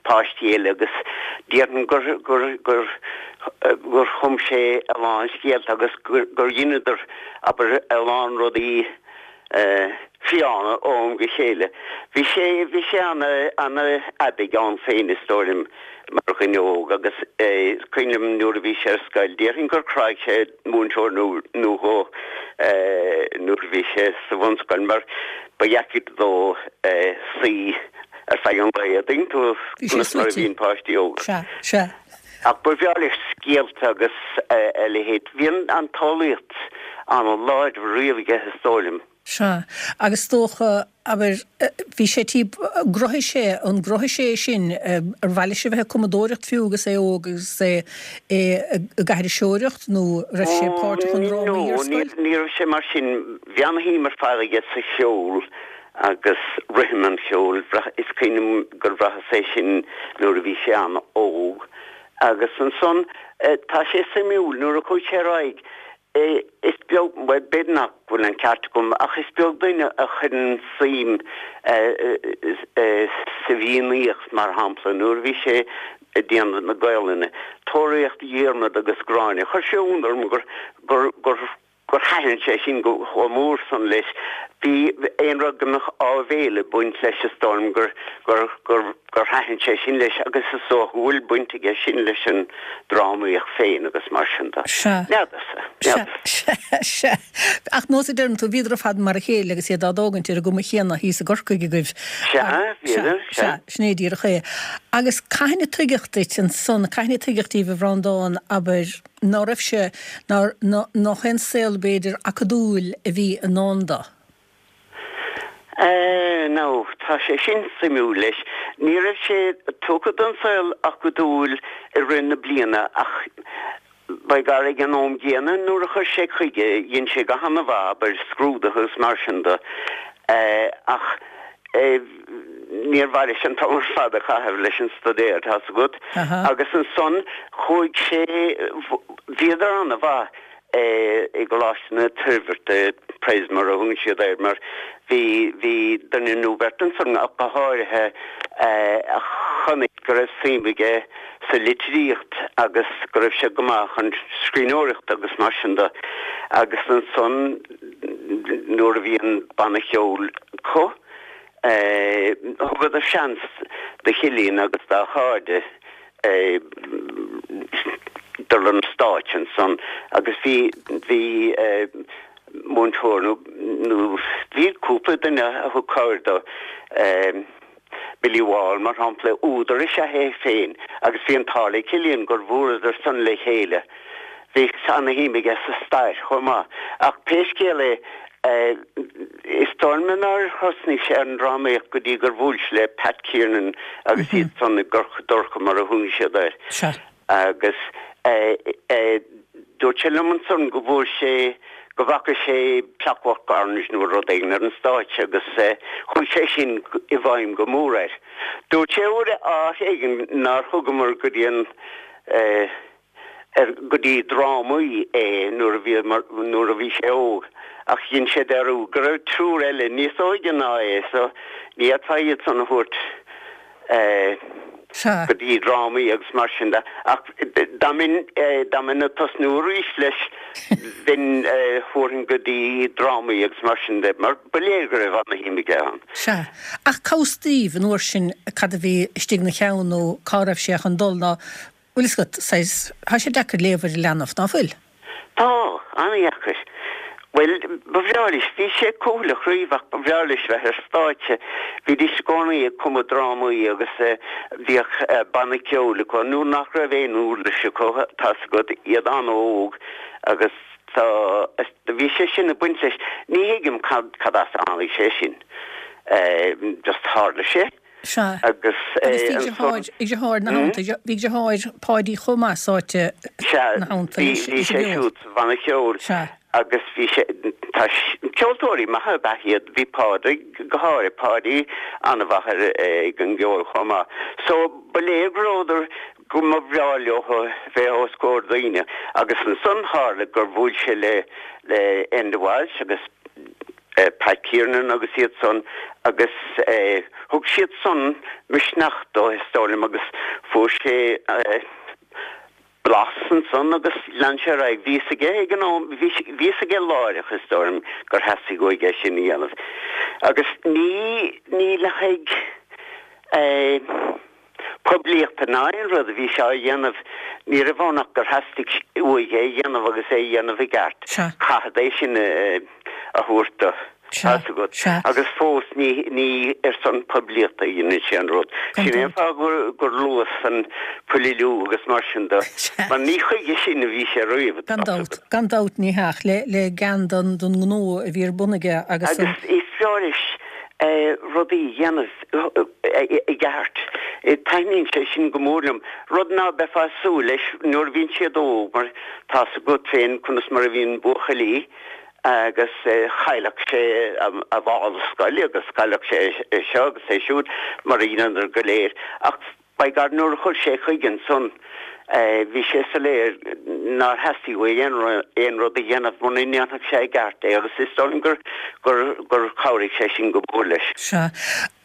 páistí eile agus déarfainn gur, gur, gur, gur chum sé a lán scéalta agus gur, gur dheineadar, abair, a lán rudaí fiáine ó am go chéile. Bhí sé, bhí sé ana, ana-aibidh ann féin is dóigh liom mar dhuine óg agus is cuimhin liom nuair a bhí sé ar scoil, déarfainn gur chráigh sé múinteoir nó, nó dhó nuair a bhí sé sa bhunscoil mar ba dheacair dó suí ar feadh an lae, an dtuigeann tú Bhí sé conas mar a suite. bhíonn páistí óga. Sea, sea. Ach ba bhreá leis scéalta agus a leithéid. Bhí an tsamhlaíocht an-láidir riamh aige, is dóigh liom. Sea. Agus is dócha, abair, bhí sé tí, gcruthaigh sé, an gcruthaigh sé é sin, ar mhaith leis a bheith ag cumadóireacht fiú agus é óg agus é ag aithriseoireacht nó raibh sé páirteach i ndrámaí ar scoil? No, ní raibh sé mar sin. Bhí an-shuim ar fad aige sa cheol agus rithim an cheoil. Is cuimhin liom gur bhraitheas é sin nuair a bhí sé an-óg. Agus ansan, tá sé suimiúil, nuair a chuaigh sé ar aghaidh, is beag, bhuel, b'fhéidir nach bhfuil an ceart agam, ach is beag duine a chuireann suim sa bhFiannaíocht, mar shampla, nuair a bhí sé ag déanamh na Gaolainne, Tóraíocht Dhiarmada agus Gráinne, chuir sé ionadh orm gur, gur, gur, gur thaitin sé sin go chomh mór san leis. Bhí aon rud go mbeadh áibhéil ag baint leis is dóigh liom gur, gur, gur, gur thaitin sé sin leis agus is dócha go bhfuil baint aige sin leis an drámaíocht féin agus mar sin de. Sea. N'fheadarsa. Sea, N'fheadarsa. sea, sea. Ach nós a deireann tú, bhíodar ar fad mar a chéile agus iad á dtógaint ar an gcuma chéanna thíos i gCorcaigh agaibh. Sea, bhíodar, sea. Sea, sin é díreach é. Agus cathain a tuigeadh duit ansan, cathain a tuigeadh daoibh a Bhreandáin, abair, ná raibh sé, ná, ná, nach aon saol, b'fhéidir, acadúil a bhí i ndán dó. Eh, now, tá sé sin suimiúil leis. Ní raibh sé tugtha don saol acadúil i rith na bliana ach by gar ag an am gcéanna nuair a chuir sé chuige, dhein sé go han-mhaith, abair, scrúduithe agus mar sin de. Eh, ach eh, níor mhaith leis an t-am ar fad a chaitheamh leis an staidéar, tá's agat. Agus ansan chuaigh sé, bhíodar an-mhaith i gColáiste na Toirbhirte, Pres mar a thugann siad air, mar bhí, bhí duine nó beirt ansan ach go háirithe a chonaic go raibh suim aige sa litríocht agus go raibh sé go maith chun scríbhneoireachta agus mar sin de. Agus ansan nuair a bhí an banna ceoil acu, thugadar seans do Chillian agus dá chairde dul ar an stáitse ansan agus bhí, bhí múinteoir nó, nó bhí cúpla duine a thug cabhair dó, Billy Wall mar shampla, údar is ea é féin agus bhí an t-ádh le Cillian gur bhuaileadar san le chéile. Bhí ana-shuim aige sa stair chomh maith. Ach pé scéal é, is dóigh liom nár thosnaigh sé ar an drámaíocht go dtí gur bhuail sé le Pat Kiernan agus iad san i gCorca Dorcha mar a thugann siad air. Agus dúirt sé liom ansan go bhfuair sé, go bhfaca sé Clockwork Orange nó rud éigin ar an stáitse agus chuaigh sé sin i bhfeidhm go mór air. Dúirt sé uair áit éigin nár thugamar go dtí an, ar, go dtí drámaí é nuair a bhí, nuair a bhí sé óg ach dhein sé dearúd go raibh triúr eile níos óige ná é so ní fhéadfá iad san a thabhairt Sea. go dtí drámaí agus mar sin de. Ach dá mbeinn, dá mbeinn ag tosnú arís leis, bheinn, thabharfainn go dtí drámaí agus mar sin de, mar ba léir go raibh ana-shuim aige ann. Sea. Ach cá bhfios daoibh an uair sin cad a bhí istigh ina cheann nó cá raibh sé chun dul ná, bhfuil fhios agat, saghas, tá sé deacair léamh ar leanbh, ná fuil? Tá, an-dheacair. Bhuel, ba bhreá leis, bhí sé cúthaileach riamh ach ba bhreá leis bheith ar stáitse. Bhídís i gcónaí ag cumadh drámaí agus bhíodh banna ceoil acu nuair nach raibh aon uirlis acu, tá's agat, iad an-óg agus tá, bhí sé sin ag baint leis. Ní thuigim cad, cad as a tháinig sé sin. Just tharla sé. Sea. Agus bhí deartháir, bhí deartháir ina theannta, bhí deartháir Páidí chomh maith sáite ina theannta leis. Sea, bhí sé siúd sa bhanna ceoil. Sea. Agus bhí sé, tá, ceoltóirí maithe ab ea iad, bhí Pádraig go háirithe, Páidí an-mhaith ar, ag an gceol chomh maith. So, ba léir go rabhadar, go mba bhreá leo bheith os comhair daoine. Agus ansan tharla gur bhuail sé le, le Enda Walsh agus, Pat Kiernan agus iad san agus thug siad san misneach dó is dóigh liom agus fuair sé blas ansan agus lean sé ar aghaidh. Bhí fhios aige ag an am, bhí fhios aige láithreach is dóigh liom gur theastaigh uaidh é sin a dhéanamh agus ní, ní le haghaidh poiblíochta ná aon rud a bhí sé á dhéanamh. Ní raibh ann ach gur theastaigh uaidh é a dhéanamh agus é a dhéanamh i gceart. Caithfead é sin a thabhairt do. Tá's agat. Agus fós ní ní ar son poiblíochta a dhéanann sé an rud. Sin é an fáth gur gur luas an Paliú agus mar sin de. Mar ní chuige sin a bhí sé riamh. Gan dabht. Gan dabht ní hea. Le le gean don don ngnó a bhí ar bun aige agus an. Agus is fearr leis rudaí a dhéanamh i gceart. Taitníonn sé sin go mór liom. Rud ná beifeá ag súil leis nuair a bhíonn siad óg mar tá's agat féin conas mar a bhíonn buachaillí agus chaillfeadh sé a mhála scoile agus chaillfeadh sé é seo agus é siúd mar a dheineadar go léir. Ach By God, nuair a chuir sé chuige ansan, bhí sé soiléir nár theastaigh uaidh aon rud a dhéanamh muna ndéanfadh sé i gceart é agus is dóigh liom gur, gur, gur chabhraigh sé sin go mór leis. Sea.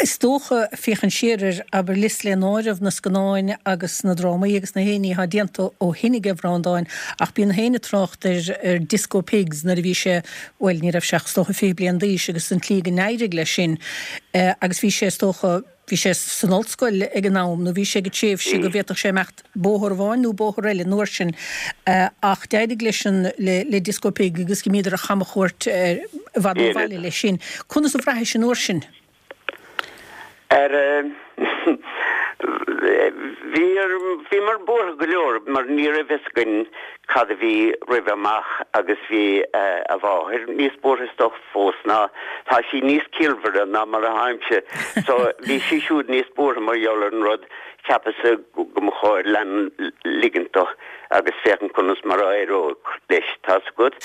Is dócha, féachaint siar air, abair, liosta le n-áireamh na scannáin agus na drámaí agus na haon ní atá déanta ó shin aige Bhreandáin, ach bíonn gach éinne ag trácht ar, ar Disco Pigs nuair a bhí sé, bhuel, ní raibh sé ach is dócha 20 bliain d'aois agus an tslí go n-éirigh leis sin agus bhí sé is dócha, Bhí sé san ollscoil ag an am, nó bhí sé ag an tréimhse go bhféadfadh sé imeacht bóthar amháin nó bóthar eile an uair sin. Ach d'éirigh leis an, le Disco Pig agus d'imíodar ar chamchuairt i bhfad ó bhaile leis sin. Conas a bhraithis an uair sin? Ar, bhí, bhíomar buartha go leor mar ní raibh fhios againn cad a bhí roimhe amach agus bhí a mháthair níos buartha is dócha fós ná tá sí níos ciallmhaire ná mar a tháimse so bhí sí siúd níos buartha mar gheall ar an rud cheapas-sa go mba chóir lean ligint dó agus féachaint conas mar a éireodh leis tá's agat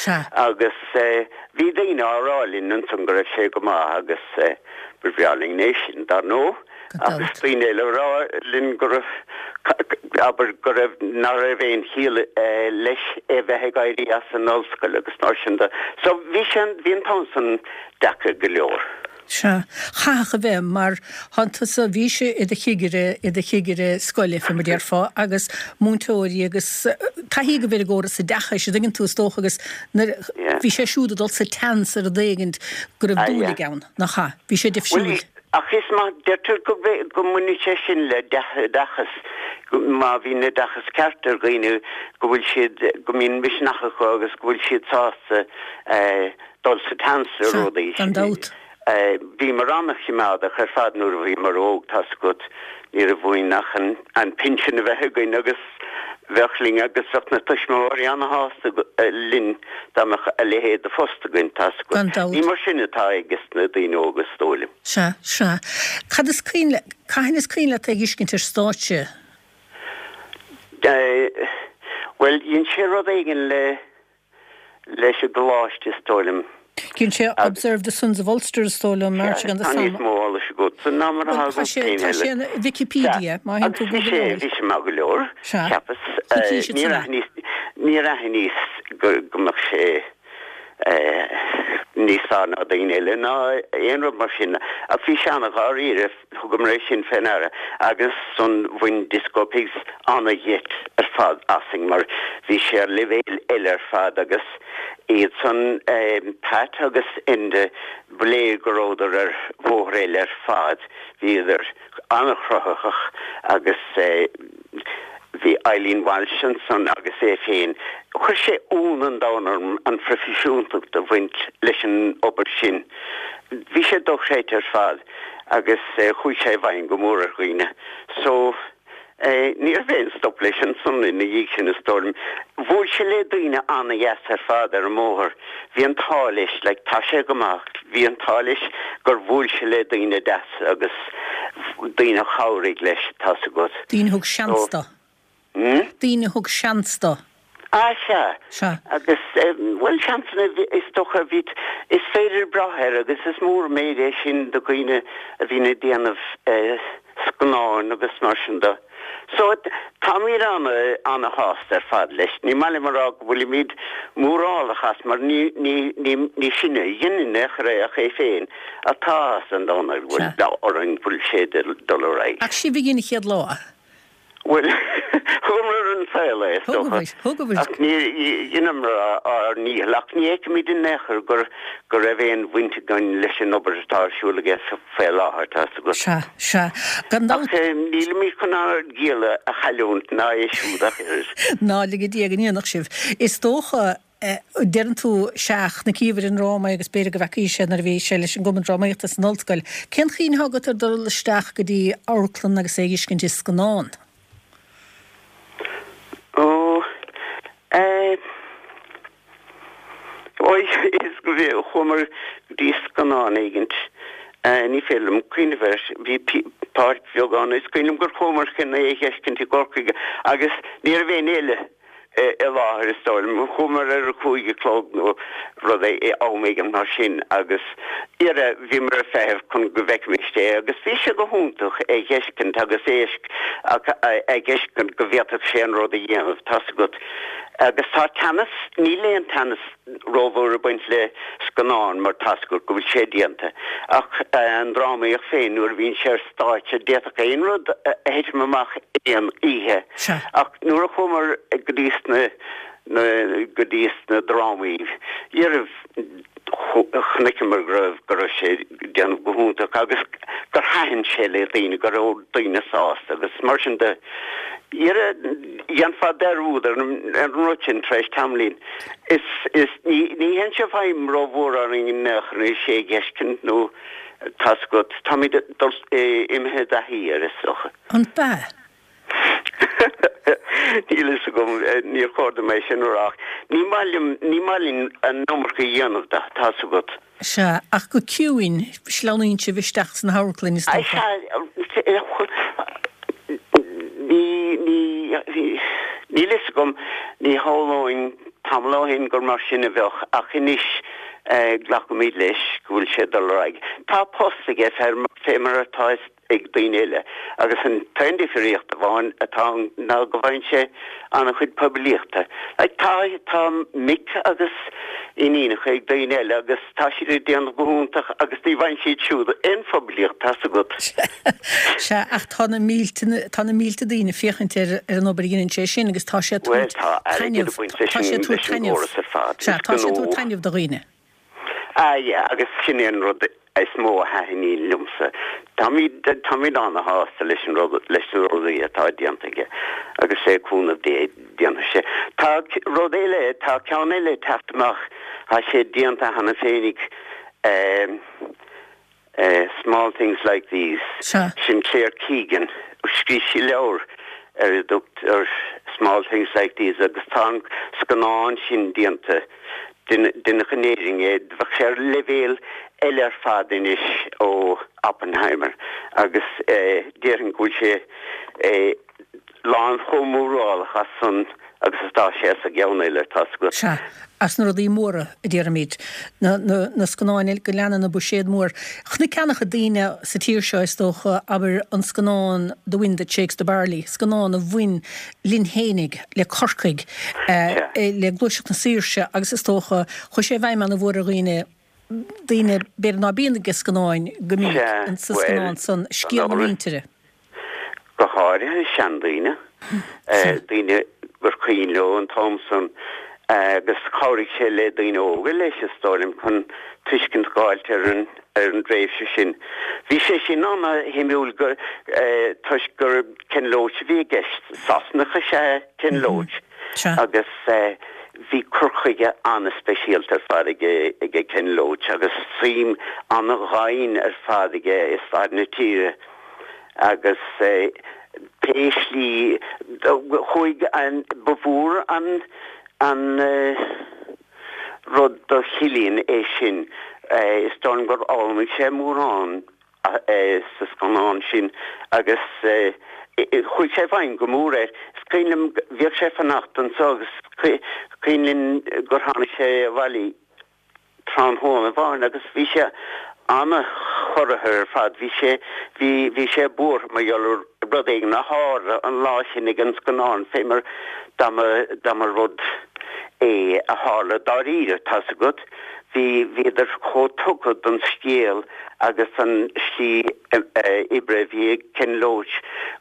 agus bhí daoine á rá linn ansan go raibh sé go maith agus ba bhreá linn é sin dar ndóigh. Agus daoine eile ag rá linn go raibh, abair, go raibh, nach raibh aon chiall leis é bheith ag éirí as an ollscoil agus mar sin de. So bhí sé, bhí an t-am san deacair go leor. Sea. Chaithfeadh a bheith, mar thánn tusa, bhís i do chigire, i do chigire scoile, fé mar déarfá, agus múinteoirí agus taithí agaibh ar an gcóras oideachais, an dtuigeann tú, is dócha, agus nuair, bhí sé siúd ag dul sa tseans ar rud éigint go raibh dúil aige ann, nach ea? Bhí sé difriúil. Bhuel, ach is maith, deirtear go, go mbaineann sé sin le dea-oideachas, má bhíonn oideachas ceart ar dhaoine, go bhfuil siad, go mbíonn misneach acu agus go bhfuil siad sásta dul sa tseans ar Sea, rudaí. gan dabht. Bhíomar an-choimeádach ar fad nuair a bhíomar óg, tá's agat, ní raibh uainn ach an pinsean a bheith againn agus bheadh linn agus bheadh na tuismitheoirí an-shásta linn dá mbeadh a leithéid de phost againn, tá's agat. Gan dabht. Ní mar sin atá ages na daoine óga, is dóigh liom. Sea, sea. Cad is cuimhin le, cathain is cuimhin leat é a dh'fheiscint ar stáitse? Bhuel, dhein sé rud éigin le leis an gcoláiste is dóigh liom. Dhein sé Observe the Sons of Ulster is dóigh liom, Marching on the Tá níos Somme. mó eolais agatsa ná mar atá Bhuel, tá agam sé, féin tá eile. sé in Wikipedia, má théann Agus tú bhí sé, Googleáil. bhí sé maith go leor, Sea. cheapas. Coicís Níor ansan. aithníos, níor aithníos go, go mbeadh sé níos fearr ná daoine eile ná aon rud mar sin. Ach bhí sé an-dháiríre. Thugamar é sin fé ndeara agus ansan bhain Disco Pigs ana-gheit ar fad asainn mar bhí sé ar leibhéal eile ar fad agus iad san, Pat agus Enda, ba léir go rabhadar ar bhóthar eile ar fad, bhíodar an-chruthaitheach agus bhí Eileen Walsh ansan agus é féin. Chuir sé ionadh an domhain orm an phroifisiúntacht a bhaint leis an obair sin. Bhí sé dochreidte ar fad. agus chuaigh sé i bhfeidhm go mór ar dhaoine. So, ní raibh aon stop leis ansan ina dhiaidh sin, is dóigh liom. Bhuail sé le daoine an-dheas ar fad ar an mbóthar. Bhí an t-ádh leis, like, tá sé go maith, bhí an t-ádh leis gur bhuail sé le daoine deasa agus daoine a chabhraigh leis, tá's agat. Daoine a thug seans So, do. Daoine a thug seans dó. Ah, sea. Sea. Agus, bhuel, seansanna, is dócha, bhí, is féidir brath air agus is mór an méid é sin do dhaoine a bhíonn ag déanamh scannáin agus mar sin de. So, táimid ana-shásta ar fad leis. Ní maith liom a rá go bhfuilimid mórálach as mar ní, ní, ní, ní sinne a dhein in aon chor é ach é féin. Ach tá áthas an domhain air go bhfuil, orainn go bhfuil sé ag dul ar aghaidh. Ach sibh a dhein an chéad lá. Bhuel, thugamar ar an saol é, is dócha. Thugaibh. Ach ní dheineamar ár ndícheall. Ach ní fheicimid in aon chor gur go raibh aon bhaint againn leis an obair atá ar siúl aige faoi láthair, tá's agat. Sea, sea. Gan dabht. Ach nílimid chun ár gciall a chailliúint ná é siúd ach oiread. Ná lige Dia go ndéanfadh sibh. Is dócha. Deireann tú, sea, chonaiceabhair an dráma agus b'fhéidir go bhfeacaís é nuair a bhí sé leis an gCumann Drámaíochta san ollscoil. Cén chuimhne atá agat ar dul isteach go dtí amharclann agus é a dh'fheiscint i scannán? Ó, eh, ó, is go bhí, chuamar go dtí scannán éigint, eh, ní féidir liom cuimhneamh air, bhí páirc bheag ann, is cuimhin liom gur chuamar chun é a dh'fheiscint i gCorcaigh agus ní raibh éinne eile. i láthair is dóigh liom. Chuamar ar a cúig a chlog nó rud am éigin mar sin agus dhera bhíomar ag feitheamh chun go bhfeicfimis é agus bhí sé go hiontach é dh'fheiscint agus é a dh'fheiscint go bhféadfadh sé an rud a dhéanamh, tá's agat. Agus tá teannas, níl aon teannas rómhór ag baint le scannán mar tá's agat go bhfuil sé déanta ach an drámaíocht féin nuair a bhíonn sé ar stáitse d'fhéadfadh aon rud a thitim amach aon oíche ach nuair a chuamar go dtí sna na go dtí sna drámaí dhera chonaiceamar go raibh go raibh sé ag déanamh go hiontach agus gur thaitin sé le daoine go raibh daoine sásta agus mar sin de. Dhera dhéanfá dearúd ar an rud sin tar éis tamaillín. Is, is, ní, ní théann sé i bhfeidhm rómhór orainn in aon chor anois é a dh'fheiscint nó tá's agat, táimid dul, imithe i dtaithí air is dócha. An b'ea? Níl fhios agam, níor chóir dom é sin a rá ach ní maith liom, ní maith linn an iomarca a dhéanamh de, tá's agat. Sea, ach go ciúin, sleamhnaíonn sibh isteach sna hamharclainn, is dócha. Sea, ní, ní, níl fhios agam, ní shamhlóinn tamall ó shin gur mar sin a bheadh, ach anois glacaimid leis go bhfuil sé ag dul ar aghaidh. Tá post aige, fé mar atá. ag daoine eile agus an t-aon difríocht amháin atá ann ná go bhfaigheann sé an-chuid poiblíochta. Like tá, tá mic agus iníonacha ag daoine eile agus tá siad ag déanamh go hiontach agus ní bhfaigheann siad siúd aon phoiblíocht, tá's agat. Sea, ach tá na mílte, tá na mílte daoine ag féachaint ar ar an obair a dheineann sé sin agus tá sé ag Bhuel tabhairt tá airgead taitneamh, ag baint leis tá sé an, ag tabhairt leis an taitneamh, gcóras ar fad. sea, Is tá sé ag gnó. tabhairt taitneamh do dhaoine. Ah yeah, agus sin é an rud is mó a thaitníonn liomsa. Táimid, táimid ana-shásta leis an rud, leis na rudaí atá déanta aige agus le cúnamh Dé déanfaidh sé. Tá rud eile, tá ceann eile ag teacht amach, tá sé déanta cheana féinig, eh, eh, Small Things Like These, Sea. sin Claire Keegan, scríobh sí leabhar ar a dtugtar Small Things Like These agus tá an scannán sin déanta. Deineadh in Éirinn é. Bheadh sé ar leibhéal eile ar fad anois ó Oppenheimer agus déarfainn go bhfuil sé lán chomh mórálach as san agus atá sé as an gceann eile, tá's agat. Sea, as na rudaí móra, a déarfaimid. Na, na, na scannáin go leanann an buiséad mór. Chonaic an-chuid daoine sa tír seo, is dócha, abair, an scannán The Wind That Shakes the Barley, scannán a bhain linn fhéinig, le Corcaigh, le Gluaiseacht na Saoirse agus is dócha, chuaigh sé i bhfeidhm ana-mhór ar dhaoine, daoine b'fhéidir ná bíonn ag scannáin go minic, sa scannán san, scéal na muintire. Go háirithe seandaoine, daoine gur cuimhin leo an t-am san agus chabhraigh sé le daoine óga leis, is dóigh liom, chun tuiscint a dh'fháilt ar an ar an dtréimhse sin. Bhí sé sin ana-shuimiúil toisc gur Ken Loach a bhí i gceist. Sasanach is ea Ken Loach agus bhí cur chuige ana-speisialta ar fad aige Ken Loach agus suim ana-dhoimhin ar fad aige i stair na tíre agus pé slí chuaigh an, ba mhór an, an, rud do Chillian é sin. Is dóigh liom gur fhoghlaim sé mórán sa scannán sin agus chuaigh sé i bhfeidhm go mór air. Is cuimhin liom, bhíodh sé ag fanacht anseo agus is cuimhin linn gur tháinig sé abhaile tráthnóna amháin agus bhí sé ana-chorraithe ar fad. Bhí sé, bhí, bhí sé buartha mar gheall ar rud éigin a tharla an lá sin ag an scannán, fé mar dá mba, dá mba rud é a tharla dáiríre, tá's agat. Bhí, bhíodar chomh tugtha don scéal agus don slí oibre a bhí ag Ken Loach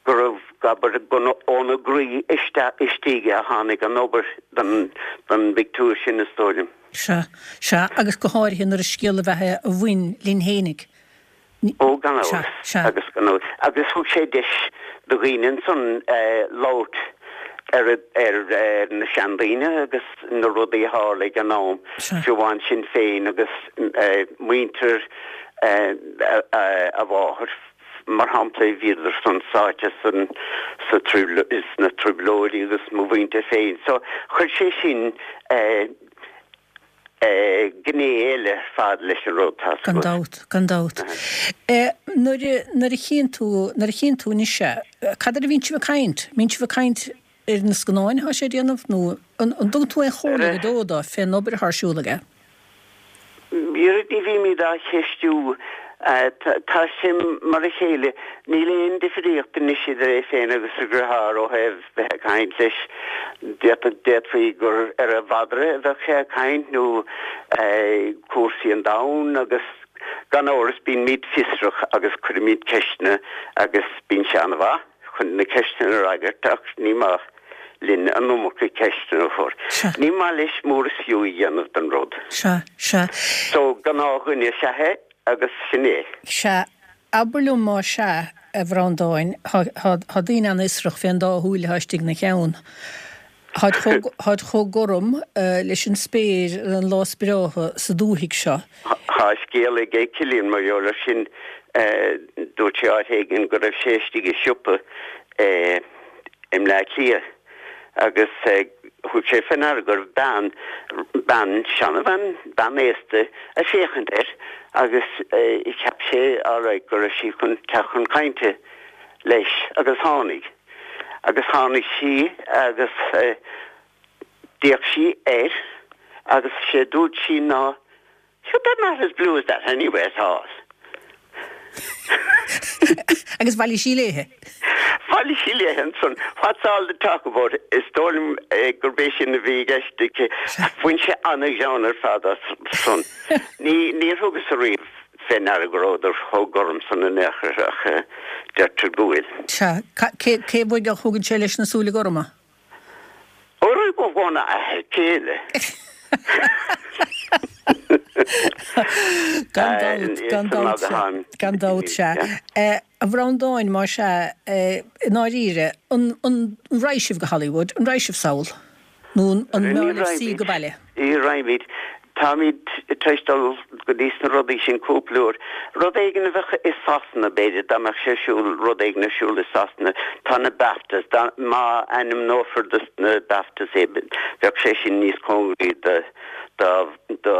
go raibh, abair, óna gcroí isteach istigh a tháinig an obair don, don bpictiúr sin, is dóigh liom. Sea, sea, agus go háirithe nuair is scéal ab ea é a bhain linn fhéinig. Ó, gan Sea, amhras, sea. agus gan amhras. Agus thug sé deis do dhaoine ansan labhairt ar, ar na seandaoine agus na rudaí a tharla ag an am, Sea. fiú amháin sinn féin agus muintir a mháthar, mar shampla, bhíodar san sáite san, sa, sna trioblóidí agus mo mhuintir féin. So, chuir sé sin gné eile ar fad leis an rud, tá's Gan agat. dabht, gan dabht. Nuair a, nuair a chíonn tú, nuair a chíonn tú anois é, cad air a bhíonn sibh ag caint? Mbíonn sibh ag caint ar na scannáin atá sé ag déanamh nó an, an dtugann tú aon chomhairle go deo dó fén obair atá ar siúl aige? Ní bhímid á cheistiú. Tá sé mar a chéile. Níl aon difríocht anois idir é féin agus a dheartháir ó thaobh bheith ag caint leis. D'fhéadfaí gur ar a mhadra a bheadh sé ag caint nó cúrsaí an domhain agus gan amhras bímid fiosrach agus cuirimid ceisteanna agus bíonn sé an-mhaith chun na ceisteanna a fhreagairt ach ní maith linn an iomarca ceisteanna a chur. Sea. Ní maith leis mór is fiú a dhéanamh den rud. Sea, sea. So, gnáthdhuine is ea é agus sin é. Sea. Abair liom más ea, a Bhreandáin, tá daoine an-fhiosrach fén dá shúil atá istigh ina cheann. Táid chomh, táid chomh gorm leis an spéir ar an lá is breátha sa dúthaigh seo. Tá scéal aige Cillian mar gheall air sin. Dúirt sé áit éigin go raibh sé istigh i siopa i i mBleá Cliath agus thug sé fé ndeara go raibh bean, bean, seanabhean, bean aosta ag féachaint air agus cheap sé alright go raibh sí chun teacht chun cainte leis agus tháinig. Agus tháinig sí agus d'fhéach sí air agus sé dúirt sí ná Sure they're not as blue as that anyway at all. Agus bhailigh sí léithe. Bhailigh sí léithe ansan. What's all the talk about? Is dóigh liom gurb é sin a bhí i gceist aici. Bhain sé an-ghreann ar fad as san. Ní, níor thugas ariamh fé ndeara go rabhadar chomh gorm san in aon chor ach deirtear go bhfuil. Sea. Cé, cé uaidh a thugann sé leis na súile gorma? Ó, óna athair céile. Gan dabht, gan dabht, sea. Gan dabht, sea. A Bhreandáin, más ea, i ndáiríre, an raghaidh sibh go Hollywood? An raghaidh sibh sall? Nó an mb'fhearr libh suí go baile? Ní raghaimid. Táimid tar éis dul go dtí sna rudaí sin cúpla uair. Rud éigin a bheadh i Sasana, b'fhéidir, dá mbeadh sé ar siúl, rud éigin ar siúl i Sasana, tá na BAFTAs, dá, má ainmneofar dos na BAFTAs é, bheadh sé sin níos cóngaraí do, do, do,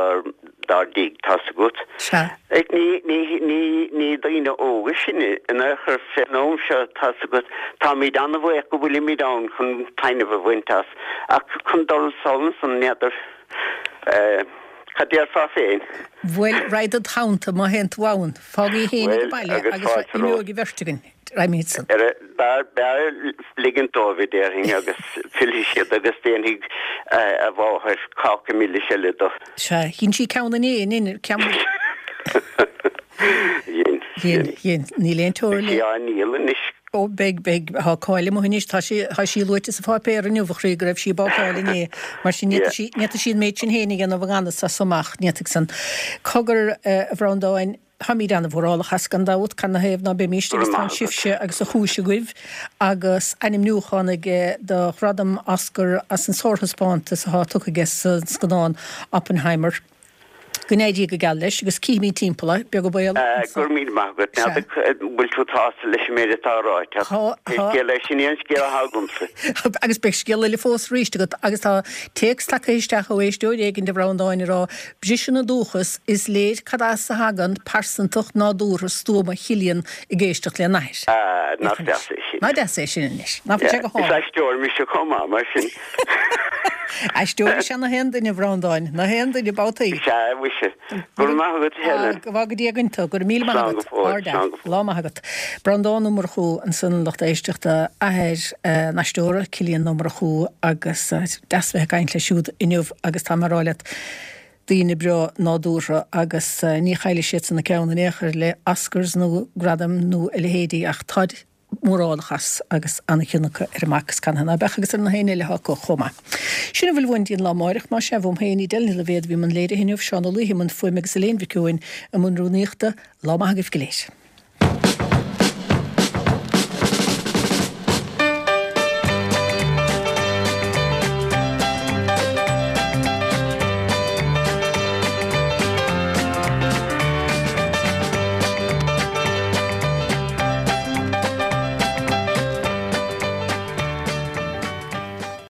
dár dtigh, tá's agat. Sea. Ach ní, ní, ní, ní daoine óga sinne in aon chor fén am seo, tá's agat. Táimid an-bhuíoch go bhfuilimid ann chun taitneamh a bhaint as, ach chun dul sall ansan, n'fheadar. Cad déarfá féin? Bhuel, raghad id theannta má théann tú ann. Fág í féin ag an baile agus imeoidh an bheirt againn. Raghaimid-san. B'fhearr ligint dóibh, a déarfainn, agus fillfidh siad agus déanfaidh a mháthair cáca milis eile do. Sea, dhein sí ceann inné, an ndein, ceann. Dhein. Dhein, dhein. Níl aon teora le. Beidh sí á ndíol anois. Ó, beidh, beidh. Tá cáil amuigh anois. Tá sí, tá sí luaite sa pháipéar inniu, a chroí, go raibh sí ag bácáil inné. Mar sin, ní fhéadfadh sí, ní fhéadfadh sí an méid sin féin a dhéanamh i ngan fhios as so amach, ní fhéadfadh san. Cogar, a Bhreandáin, táimid an-mhórálach as, gan dabht, cad 'na thaobh ná beimíst, Go agus raibh tá maith agat. sibhse agus an chúis agaibh, agus ainmniúchán aige do ghradam Oscar as an sárthaispeántas atá tugtha aige sa scannán Oppenheimer. Go n-éirí go geal leis agus cífimid timpeall é, beag an baol anso. Go raibh míle maith agat. Sea. An bhfuil tú sásta leis an méid atá ráite ach Tá, pé tá. scéal é, sin é an scéal atá agamsa. Agus beidh scéal eile fós arís agat agus tá téacs tagtha isteach ó éisteoir éigin a Bhreandáin ag rá, Briseann an dúchas, is léir cad as a thagann pearsantacht nádúrtha stuama Chillian ag éisteacht lena athair. Ah, nach deas é sin. Nach deas é sin anois. Nach bhfuil sé go Is hálainn. aisteoir mise chomh maith, mar sin. Aisteoir is ea na haon duine, a Bhreandáin, na haon duine, babhtaí. Is ea, mhuise. Go raibh maith agat, a Helen. Go bhfága Dia againn tú. Go raibh míle maith Slán go agat. fóill, Ard slán go fóill. Lá maith agat. Breandán Ó Murchú ansan, lucht éisteachta, athair an aisteora, Cillian Ó Murchú, agus deas bheith ag caint leis siúd inniu agus tá mé a rá leat, daoine breá nádúrtha agus ní chaillfidh siadsan a gceann in aon chor le Oscars nó gradaim nó a leithéidí ach táid mórálach as agus an-chion acu ar a mac is canathaobh ná beadh agus ar na héinne eile atá acu chomh maith. Sin a bhfuil uainn dtí'n lá amáireach, más ea, uaim féin, Edel Ní Loibhéad a bhí i mbun léirithe inniu, Seán Ó Laoithe i mbun fuaime agus Elaine Mhic Eoin i mbun rúnaíochta. Lá maith agaibh go léir.